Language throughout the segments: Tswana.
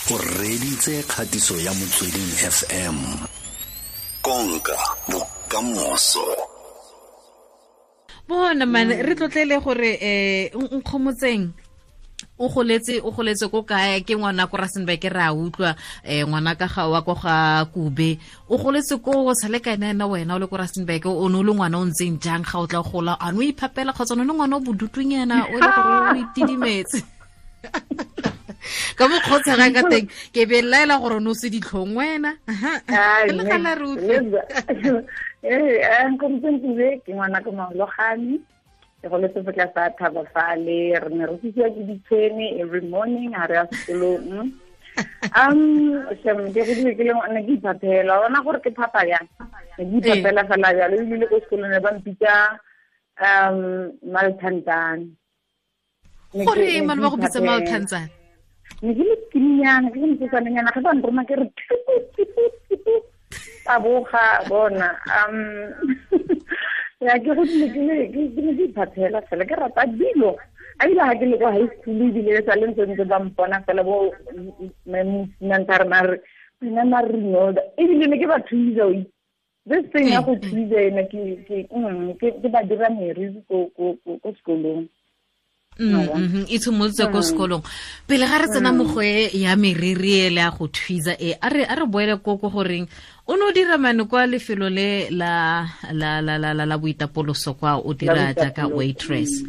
O reditse kgatiso ya Motsweding FM. Konka bokamoso. Bona man, re tlotlele gore Nkgomotseng o goletse ko kae, ke ngwana ko Rustenburg, re a utlwa ngwana ka ga wa ko ga Kube, o goletse ko o sale ka ena wena o le ko Rustenburg, o ne o le ngwana o ntseng jang ga o tla gola, a no iphapela kgotsa o ne ngwana o bodutunyana o le gore o itidimetse ka mokgotshega ka teng, ke be laela gore no se ditlhong wena. Le gala re utlwe. Nkgomotseng Kube ke ngwana ko Maologane, ke goletse fo tlase a thaba fale, re ne re tsisiwa ke ditshwene every morning ha re ya sekolong. Shem, ke godile ke le ngwana ke iphaphela, wa bona gore ke phapa yang, ne ke iphaphela fela jalo, ebile ko sekolong ne ba mpitsa Malthantsane. Gore man ba go bitsa Malthantsane? Ne ke le skinnyana, ke le mosetsanyana, ge ba nroma ke re tipu, tipu, tipu, taboga bona. Ya ke godile ke le ke ne ke iphaphela fela, ke rata dilo. A ile ha ke le kwa high school ebile sa le ntse ntse ba mpona fela bo mosimane ba re, wena mare Rinolda, ebile ne ke ba thusa o itse. This thing ya go thusa ena ke ba dira meriri ko sekolong. E tshimolotse ko sekolong. Pele ga re tsena mo go e ya meriri e le ya go thusa e, a re boele ko goreng o ne o dira mane kwa lefelo le la la la la la la boitapoloso kwa, o dira jaaka waitress.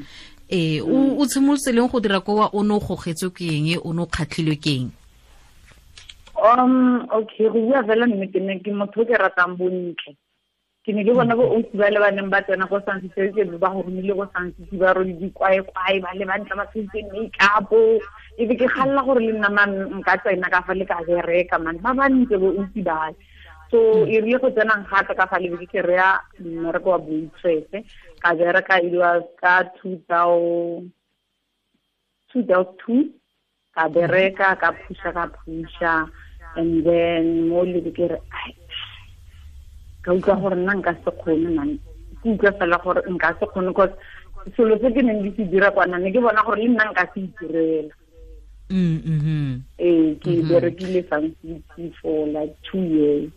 O tshimolotse leng go dira kwa, o ne o gogetswe ke eng, o ne o kgatlhilwe ke eng? Okay, go bua fela nnete, ne ke motho o ke ratang bontle. Ke ne ke bona bo ausi ba le ba neng ba tsena ko Sun City, ke ba go romile ko Sun City, ba rwele dikwaekwae, ba le bantle ba tshentse make-up. E be ke kgalla gore le nna man nka tsena ka fa le ka bereka man, ba bantle bo ausi ba. So e rile go tsenang gape ka fa le be ke kry-a mmereko wa waitress, ka bereka it was ka two thousand two, ka bereka, ka phusha, ka phusha, and then mo le be ke re, ai, ka utlwa gore nna nka se kgone man, ke utlwa fela gore nka se kgone, cause selo se ke neng ke se dira kwana ne ke bona gore le nna nka se itirela. Ke berekile Sun City for like 2 years.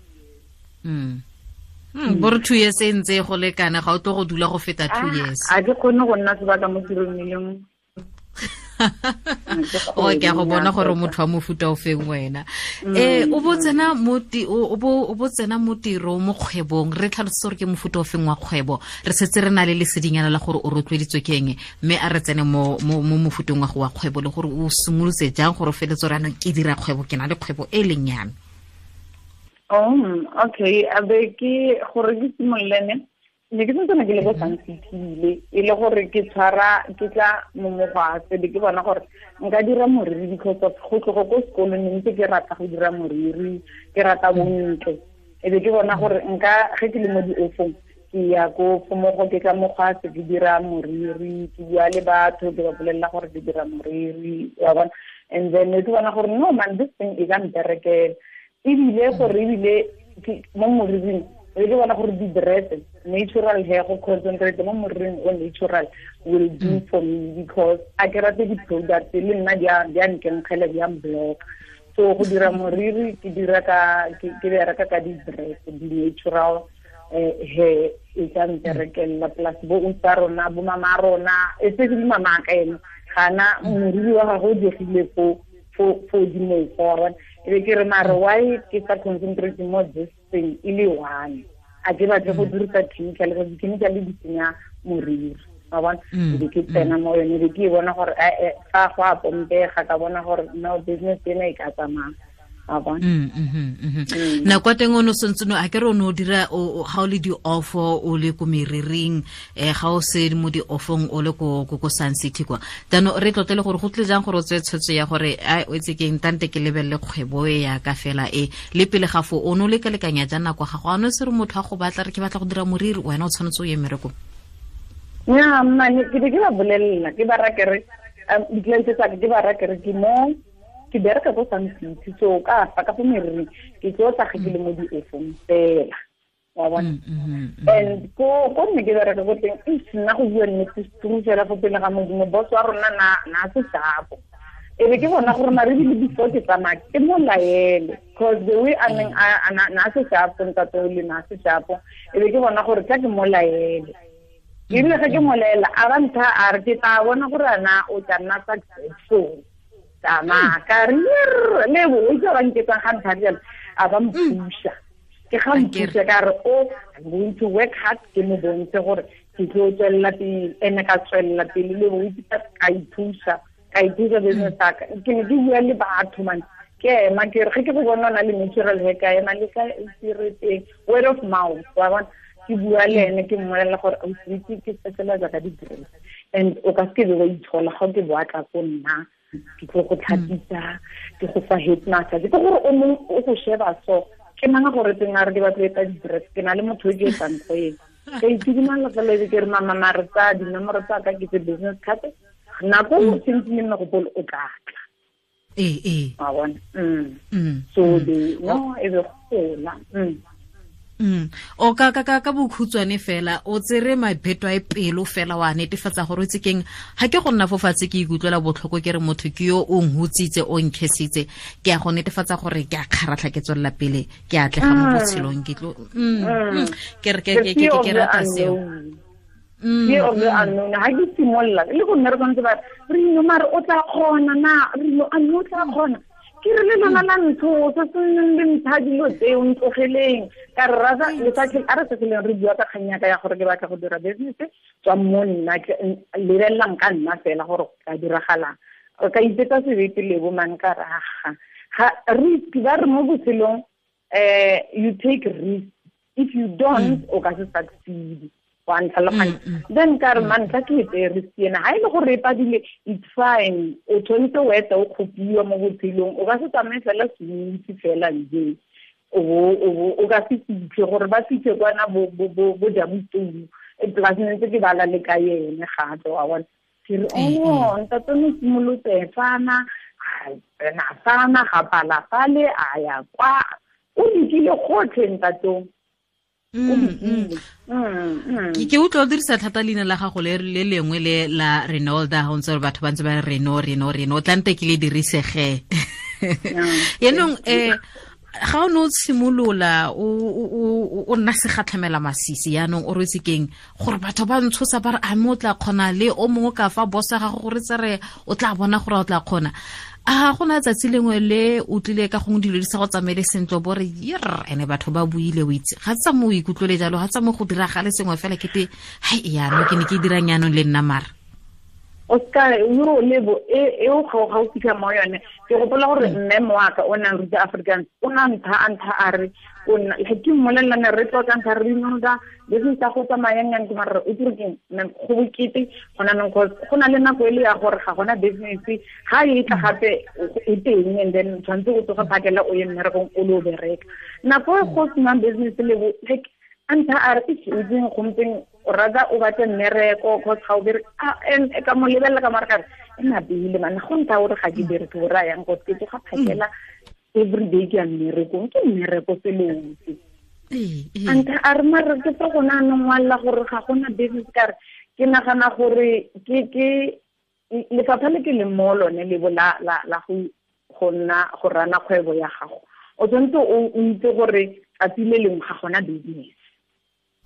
Bo re 2 years e ntse go lekana, ga o tlo go dula go feta 2 years. A ke kgone go nna sebaka mo tirong e le nngwe. O ke a go bona gore motho wa mofuta o feng wena. O bo tsena mo o bo tsena mo tirong, mo kgwebong, re tlhalosetse gore ke mofuta o feng wa kgwebo, re setse re na le lesedinyana la gore o rotloeditswe ke eng, mme a re tsene mo mofuteng wa go wa kgwebo, le gore o simolotse jang gore o feletse gore anong ke dira kgwebo, ke na le kgwebo e leng ya me. Okay, a be ke gore ke simolole ne ke santse ke le ko Sun City e le gore ke tshwara ke tla mo mogwase, be ke bona gore nka dira moriri because of go tloga ko sekolong ne ntse ke rata go dira moriri, ke rata bontle. E be ke bona gore nka ge ke le mo di-offong ke ya ko fomogo, ke tla mogwase ke dira moriri, ke bua le batho ke ba bolelela gore ke dira moriri, wa bona. And then ne ke bona gore no man, this thing e ka mperekela. Ebile gore ebile mo moriring e ke bona gore di-dress natural hair go concentrate mo moriring o natural will do for me, because a ke rate di-products le nna di a nkenkgela, di a mblock. So go dira moriri ke dira ka ke bereka ka di-dress, di-natural hair e tla mperekela, plus bo usa rona, bo mama rona, especially mama ka ene gana moriri wa gagwe o diegile fo dimofo, wa bona. E be ke re mare why ke sa concentrate mo this thing e le one, a ke batle go dirisa chemical, because chemical di senya moriri, wa bona. E be ke tsena mo yone, e be ke bona gore fa go a pompega, ka bona gore no business ena e ka tsamaya, wa bona. Nako ya teng o ne o santse a ke re o ne o dira ga o le di-offo, o le ko meriring, ga o se mo di-offong o le ko Sun City kwa. Jaanong re tlotlele gore go tlile jang gore o tseye tshwetso ya gore ai o itse keng, tante ke lebelele kgwebo e ya ka fela e, le pele ga foo o ne o lekalekanya jang nako ya gago, a ne o se re motho a go batla re ke batla go dira moriri, wena o tshwanetse o ye mmerekong? Nnyaa, mmane, ke be ke ba bolelela, ke ba raya ke re, di-client tsa ka, ke ba raya ke re ke mo ke bereka ko Sun City, so ka fa ka fo meriring ke tlo tla ge ke le mo di-offong fela, wa bona. And ko nne ke bereka ko teng, eish, nna go bua nnete, seturu fela fo pele ga Modimo, boss wa rona na se sharp. E be ke bona gore mare ebile before ke tsamaya ke mo laele, cause the way a neng na se shapo ntate o le na se shapo, e be ke bona gore tla ke mo laele. Ebile ge ke mo laela a ba ntha a re ke tla bona gore ana o tla nna successful. Tsamaya ka re le bo o itse ba nketsang ga ntha jalo, a ba mpusha. Ke ga mpusha ka re o I'm going to work hard, ke mo bontshe gore ke tlo tswelela pele, ene ka tswelela pele le bo itse ka ipusha. Ka ithusa business ka ke ne ke bua le batho man, ke ema ke re ge ke go bona o na le natural hair ka ema le ka serete word of mouth wa bona, ke bua le ene ke mmolelela gore o itse ke specialize ka di-dress and o ka seke be wa itshola ga o ke boa tla ko nna ke tlo go tlhapisa ke go fa head massage, ke gore o mongwe o go sheba so ke mang gore teng a re ke batlo etsa di-dress, ke na le motho o ke etsang go ena ka itshidimalla fela ebe ke re mama mare tsa dinomoro tsa ka ke tse business card nako o sentse le nna gopolo o tla tla. Ee. Wa bona? So the no e be gola. O ka ka ka bokhutshwane fela o tsere mabheto a pelo fela wa netefatsa gore o itse keng ga ke go nna fo fatshe ke ikutlwela botlhoko ke re motho ke yo o nhutsitse o nkhesitse ke a go netefatsa gore ke a kgaratlha ke tswelela pele ke a tlega mo botshelong ke tlo ke re ke rata seo. Fear of the unknown. Ha ke simolola le go nna re tshwanetse ba re no mare o tla kgona na re no a no tla kgona ke re le lona la ntho se se neng le mpha dilo tseo ntlogeleng ka re rasa lefatshe a re se leng re bua ka kgang ya ka ya gore ke batla go dira business tswa mo nna lebelelang ka nna fela gore ka diragalang o ka itetsa sebete le bo mang ka raga ga risk ba re mo botshelong you take risk, if you don't o ka se succeed. Then ka re man tla ke etse risk ena ha ile gore e padile it's fine, o tshwanetse o eta o kgopiwa mo botshelong o ka se tsamaye fela smooth fela nje o ka se fitlhe gore ba fitlhe kwana bo jabutou e plus ne ntse ke bala le ka ene gape wa bona ke re oh ntate no simolotse fana na fana ga pala fale a ya kwa o dikile gotlhe ntatong. Ke utlwa o dirisa thata leina la gago le le lengwe le la Renolda ga o ntse gore batho ba ntse ba re Reno Reno Reno o tlante ke le dirisege. Yaanong ga o ne o simolola o nna segatlhamela masisi yaanong o rwetse keng gore batho ba ntshosa ba re a mme o tla kgona le o mongwe ka fa bosa gago gore tsere o tla bona gore o tla kgona. A go na tsatsi lengwe le o tlile ka gongwe dilo di sa go tsamaele sentle bo re yer ene batho ba buile o itse ga tsa mo o ikutlwele jalo ga tsa mo go diragale sengwe fela kete hai yaanong ke ne ke dirang yaanong le nna mara o ska yo lebo e o ga o fitlha mo yone ke gopola gore mme moaka o nang ruta Afrikaans o na ntha a re o nna ke mmolelela ne re tlotla ntha re inoda business tsa go tsamayang yang ke mara o dire keng go bokete go na neng go na le nako e le ya gore ga gona business ga e tla gape e teng and then tshwanetse o tsoga phakela o ye mmerekong o le o bereka nako e go senang business le like ntha a re ke itseng gompieno o rata o batle mmereko cause ga o bereke ka mo lebelela ka mare ka re e napile man go ntha gore ga ke bereke o raya yang cause ke tsoga phakela every day ke ya mmerekong ke mmereko selotse ntha a re mare ke tsa gona anong ngwalela gore ga gona business ka re ke nagana gore ke lefapha le ke leng mo lone lebo la go nna go rana kgwebo ya gago o tshwanetse o itse gore tsatsi le lengwe ga gona business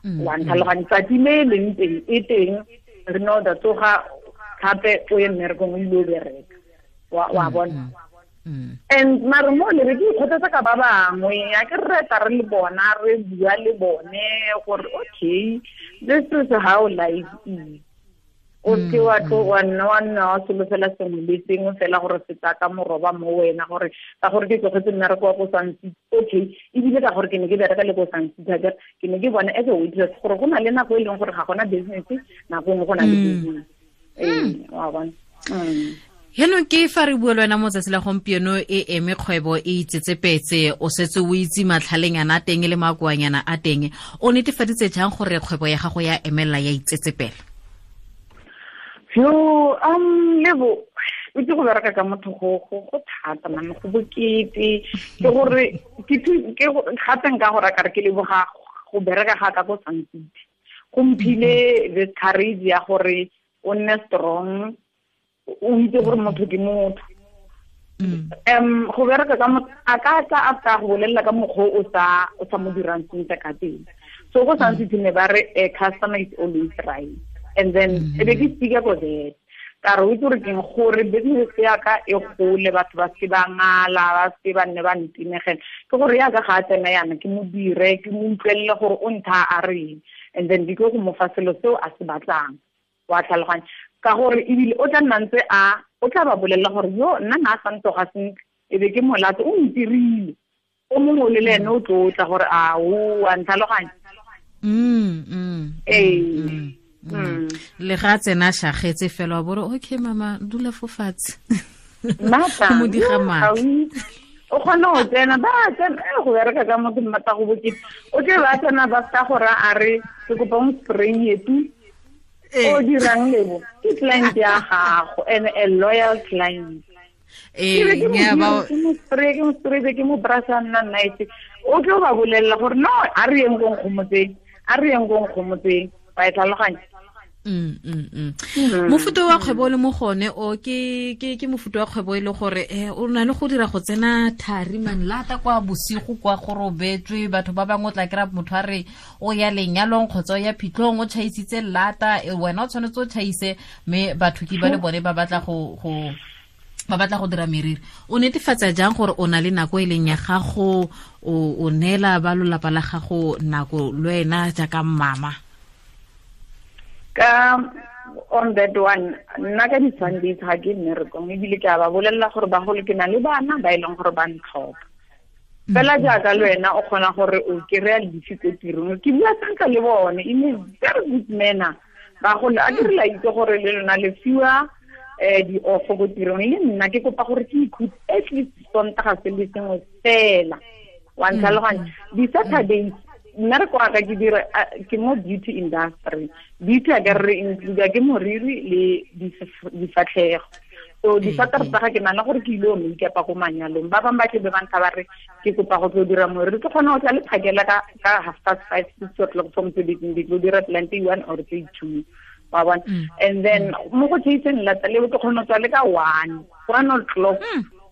wa ntlhaloganya tsatsi le leng teng e teng re no da tsoga gape o ye mmerekong o ile o bereka wa bona and mare mo le re ke ikgothatsa ka ba bangwe a ke re tla re le bona re bua le bone gore okay this is how life is o se wa tlo wa nna wa solofela sengwe le sengwe fela gore se tla ka moroba mo wena gore ka gore ke tlogetse mmereko wa ko Sun City okay ebile ka gore ke ne ke bereka le ko Sun City ke ne ke bona as a waitress gore go na le nako e leng gore ga gona business nako nngwe go na le business wa bona. Yaanong ke fa re bua le wena mo tsatsi la gompieno e eme kgwebo e itsetsepetse o setse o itse matlhalengana a teng le makoanyana a teng o netefaditse jang gore kgwebo ya gago ya emelela ya itsetsepela? Yo lebo o itse go bereka ka motho go thata man go bokete ke gore ke gape nka gore ka re ke leboga go bereka ga ka ko Sun City go mphile the courage ya gore o nne strong o itse gore motho ke motho Go bereka ka a ka tla after go bolelela ka mokgwa o sa mo dirang sentle ka teng. So go Sun City ne ba re customer is always right. And then e be ke speaker for that. Ka re o itse gore keng gore business ya ka e gole, batho ba se ba ngala, ba se ba nne ba ntinegela. Ke gore ya ka ga a tsena yana ke mo dire, ke mo utlwelele gore o ntha a reng. And then ke go mo fa selo seo a se batlang. Wa tlhaloganya. Ka gore ebile o tla nna ntse a o tla ba bolelela gore yo nna na sa ntoga sentle, e be ke molato o ntirile. O mongwe le ene o tlotla gore a o a ntlhaloganya. Le ga tsena shagetse fela wa bore okay mama dula fo fatshe. Mata mo diga matla. O kgona go tsena ba tsena go bereka ka motho mmata go bokete. O tle ba tsena ba ska gore a re ke kopa o spray etu. O dirang lebo ke client ya gago and a loyal client. Ke mo spray ke mo brasa nna night. O tlo ba bolelela gore no a re yeng go nkgomotseng, a re yeng go nkgomotseng. Ba e tlhaloganya. Mofuta wa kgwebo le mo gone o ke mofuta wa kgwebo e le gore o na le go dira go tsena thari man lata kwa bosigo kwa go robetswe batho ba bangwe o tla kry-a motho a re o ya lenyalong kgotsa o ya phitlhong o tšhaisitse lata, wena o tshwanetse o tšhaise mme batho ke ba le bone ba batla go ba batla go dira meriri. O netefatsa jang gore o na le nako e leng ya gago, o neela ba lolapa la gago nako le wena jaaka mama? Ka on that one, nna ka di-Sundays ga ke mmerekong, ebile ke a ba bolelela gore bagolo ke na le bana ba e leng gore ba ntlhoka. Fela jaaka le wena o kgona gore o kry-a lefi ko tirong, ke bua sentle le bone in a very good manner. Bagolo a ke re la itse gore le lona le fiwa di-off ko tirong, le nna ke kopa gore ke ikhutse at least Sontaga se le sengwe fela. Wa ntlhaloganya. Di-Saturdays nna re kwa ka ke dira ke mo beauty industry. Beauty a ka re include ke moriri le difatlhego. So di-Saturday tsa ga ke nana gore ke ile o make-up ko manyalong. Ba bangwe ba tle be ba ntha ba re ke kopa go tlo dira moriri, ke kgona go tla le phakela ka 5:30 6 o'clock from mosebetsing, ke tlo dira plenty 1 or 2. Wa bona. And then mo go chaseng lata le ke kgona go tswa le ka 1 o'clock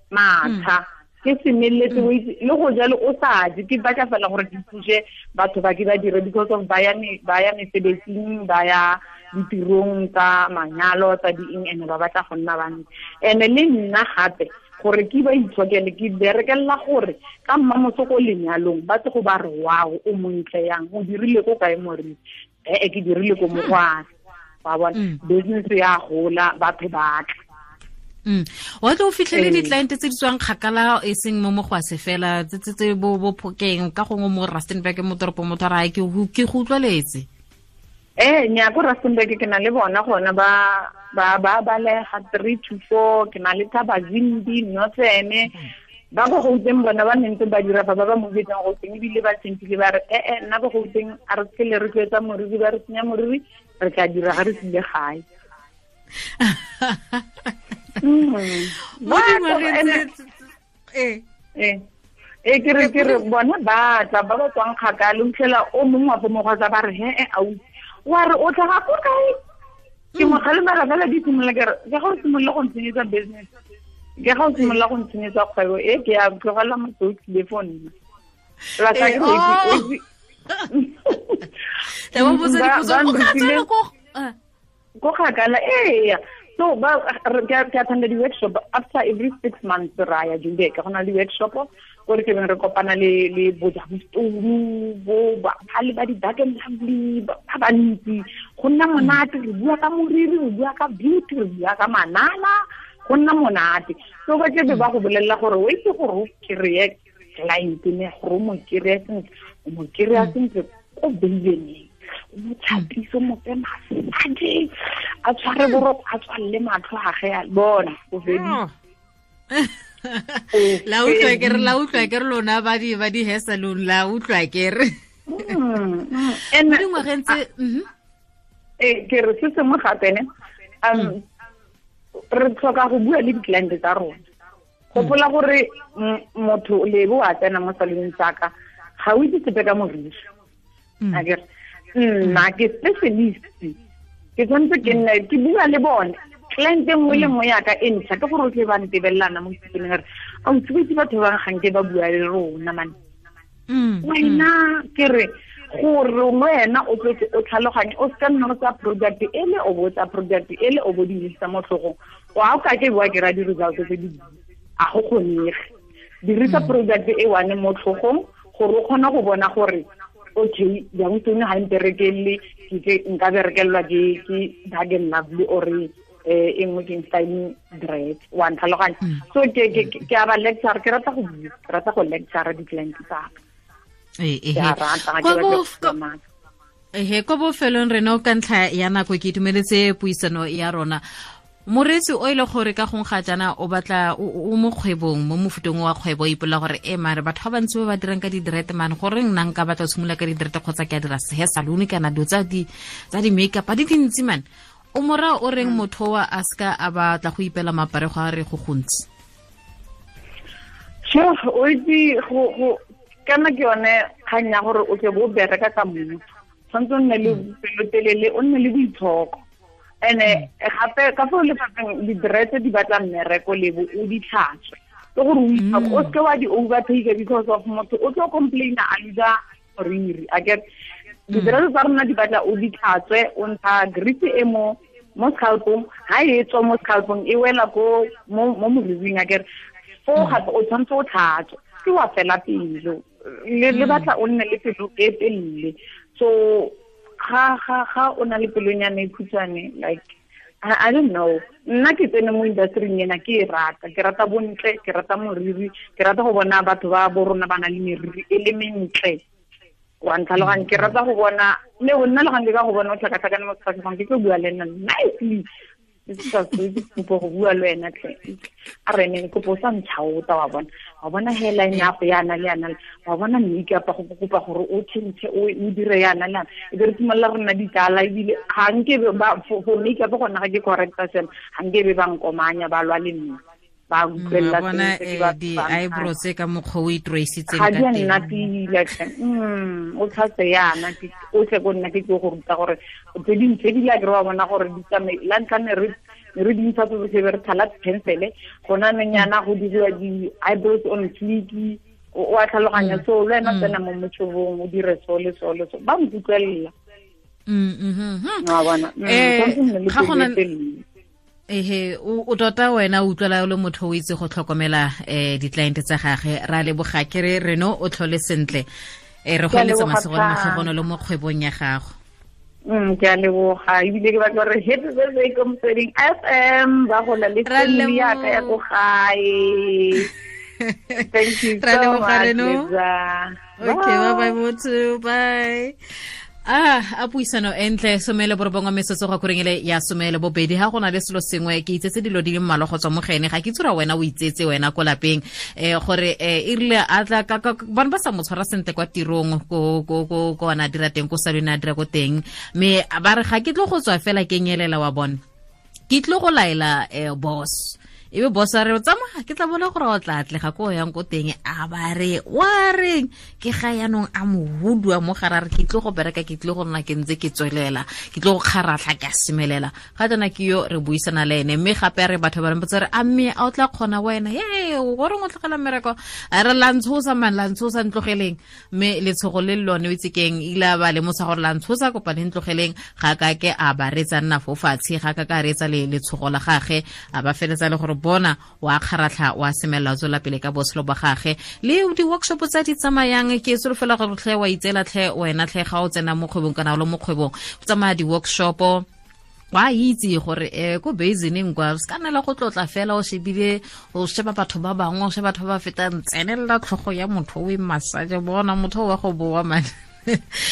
matsha. Ke semeletse o itse le go jalo o sa je, ke batla fela gore ke thuse batho ba ke ba dire because of ba ya mesebetsing, ba ya ditirong tsa manyalo tsa di eng, ene ba batla go nna bantsi. Ene le nna gape gore ke ba itshokele, ke berekelela gore ka mmamoso ko lenyalong ba tle go ba re wow o montle yang, o dirile ko kae moriri? Ke dirile ko Mogwase. Wa bona, business ya gola, batho ba tla. Wa tlo fitlhele di-client tse di tswang kgakala e seng mo Mogwase fela, tse bo Phokeng ka gongwe mo Rustenburg mo toropong, motho a re ke go utlwaletse. Nya ko Rustenburg ke na le bona gona ba balega 3 to 4, ke na le Thabazimbi, Northern, ba go Gauteng bona ba nentse ba dira fa ba ba movetseng Gauteng, ebile ba tshentile ba re nna go Gauteng a re se le re tloetsa moriri, ba re senya moriri, re tla dira ga re tsile gae. Ke re bona ba tla ba ba tswang kgakala, o fitlhela o mongwe wa bo Mogwasa ba re he ausi wa re o tlhaga ko kae? Ke mo kgalemela fela di simolola ke re ke ga o simolola go ntshenyetsa business, ke ga o simolola go ntshenyetsa kgwebo e ke ya tlogela motho o tlile fo nna. Ko kgakala eya. So ba ke attend di-workshop after every 6 months ra ya Joburg, go na le workshop ko re tlebeng re kopana le bo Jabustoru, bo ba le ba di-Dark and Lovely ba bantsi. Go nna monate, re bua ka moriri, re bua ka beauty, re bua ka manala, go nna monate. So ba tlebe ba go bolelela gore o itse gore o kry-e client ne, gore o mo kry-e sentle, o mo kry-a sentle ko beibeneng, o mo tlhapise, o mo fe massage, a tshware boroko, a tswalele matlho a ge a bona o feditse. La utlwa ke re, la utlwa ke re lona ba di hair salon, la utlwa ke re. Mo dingwageng tse ke re se sengwe gape ne, re tlhoka go bua le di-client tsa rona. Gopola gore motho lebo a tsena mo saloneng tsaka ga o itse sepe ka moriri. A ke nna ke specialist, ke tshwanetse ke nne ke bua le bone. Client e nngwe le nngwe yaka e ntšha ke gore o tle ba ntebelelana mo sepeneng re a o tsebetse batho ba ganke ba bua le rona mane. Wena ke re gore wena o tlotse o tlhaloganye, o se ka nna o tsa product e le o bo tsa product e le o bo di dirisa mo tlhogong, wa o ka ke bua ke ra di-results tse di a go kgonege. Dirisa product e one mo tlhogong gore o kgone go bona gore okay jang tsone ga mperekelle, ke nka berekelelwa ke Dark and Lovely or e nngwe ke styling dread, wa ntlhaloganya. So ke a ba lecture, ke rata go bua, ke rata go lecture di-client tsa ka. Ehe, ko bofelong rena o ka ntlha ya nako ke itumeletse puisano ya rona. Moreetsi o ile gore ka gong ga jana o batla o mo kgwebong, mo mofutong wa kgwebo, o ipolela gore e mare batho ba bantsi ba ba dirang ka di-dread man, goreng nna nka batla go simolola ka di-dread kgotsa ke a dira hair salon kana dilo tsa di-makeup di dintsi man. O mora o reng motho wa a seka a batla go ipela maparego a re go gontsi? Sure, o itse go kana ke yone kgang ya gore o tle bo bereka ka motho, tshwanetse o nne le pelotelele, o nne le boitshoko. Ene gape ka fo lefapheng di-dread di batla mmereko lebo o di tlhatswe, ke gore o itshoko, o seke wa di overtake because of motho o tlo complaina a losa moriri. A get di-dread tsa rona di batla o di tlhatswe, o ntsha grease e mo scalpong, ha e tswa mo scalpong e wela ko mo moriring, a get fo gape o tshwanetse o tlhatswe, ke wa fela pelo le batla o nne le pelo e telele. So ga ga ga o na le pelonyana e khutshwane, like I don't know, nna ke tsene mo industry-ing ena ke e rata, ke rata bontle, ke rata moriri, ke rata go bona batho ba bo rona ba na le meriri e le mentle, wa ntlhaloganya. Ke rata go bona le go nna le gang ke ka go bona o tlhakatlhakane mo sefatlhegong, ke tlo bua le nna nicely, ke kopo go bua le wena tlhe, a re ne kopo o sa ntšhaota, wa bona, wa bona hairline ya go yana le yana, wa bona makeup go kopa gore o change o dire yana le yana, e be re simolola re nna ditsala. Ebile ga nke ba for makeup gona ga ke correcta sena, ga nke be ba nkomanya ba lwa le nna, ba utlwelela di-eyebrows ka mokgwa o itroisitseng ka teng, ga di a nna pila tlhe. O tlhatse yana o tle ko nna ke tlo go ruta gore tse dingwe tse di la ke re wa bona gore di tsamaye. La ntlha ne re dintsha tsotlhe be re thala pencil, gona nonyana go diriwa di-eyebrows on fleek, o a tlhaloganya. So le wena tsena mo motšhobong o dire so le so le so, ba nkutlwelela. Wa bona, ga gona ehe o tota wena o utlwela o le motho o itse go tlhokomela di-client tsa gage. Ra leboga ke re Reno o tlhole sentle, re go eletsa masego le matlhogonolo mo kgwebong ya gago. Ke a leboga, ebile ke batla gore happy birthday ko Motsweding FM, ba gola le family ya ka ya ko gae. Thank you so much, Lisa. Okay, bye bye motho, bye. A puisano entle 19 metsotso go korengele ya 12. Ha gona le selo sengwe ke itsetse dilo di le mmalwa go tswa mo gene, ga ke tsura wena o itsetse wena ko lapeng, gore e rile a tla ka bana ba sa mo tshwara sentle kwa tirong ko ko ko ko ana dira teng ko salone a dira ko teng, mme ba re ga ke tlo go tswa fela ke nyelela wa bona, ke tlo go laela boss, ebe boss a re tsamaya ke tla bona gore o tla atlega ko yang ko teng, a ba re wa reng ke ga yanong a mo hudua mo gare re ke tlo go bereka, ke tlo go nna ke ntse ke tswelela, ke tlo go kgaratlha ke a semelela. Ga jana ke yo re buisana le ene, mme gape re batho ba re mpotsa re a mme a o tla kgona wena, ye goreng o tlogela mmereko, a re la ntshosa man, la ntshosa ntlogeleng, mme letshogo le lone o itse keng ile a ba lemosa gore la ntshosa kopa le ntlogeleng, ga ka ke a ba retsa nna fo fatshe, ga ka ka retsa le letshogo la gage, a ba feletsa le gore bona wa kgaratlha wa semelela tswela pele ka botshelo ba gage. Le di-workshop tsa di tsamayang ke solofela gore tlhe wa itseela tlhe wena tlhe ga o tsena mo kgwebong kana o le mo kgwebong o tsamaya di-workshop, wa itse gore ko basineng kwa se ka nna le go tlotla fela o shebile o sheba batho ba bangwe, o sheba batho ba ba fetang, tsenelela tlhogo ya motho o e massage, bona motho wa go boa man.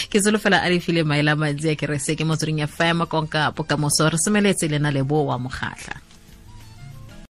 Ke solofela a le file maele a mantsi a kerese ke Motsweding FM, konka bokamoso. Re semeletse le na le bo wa Mokgatlha.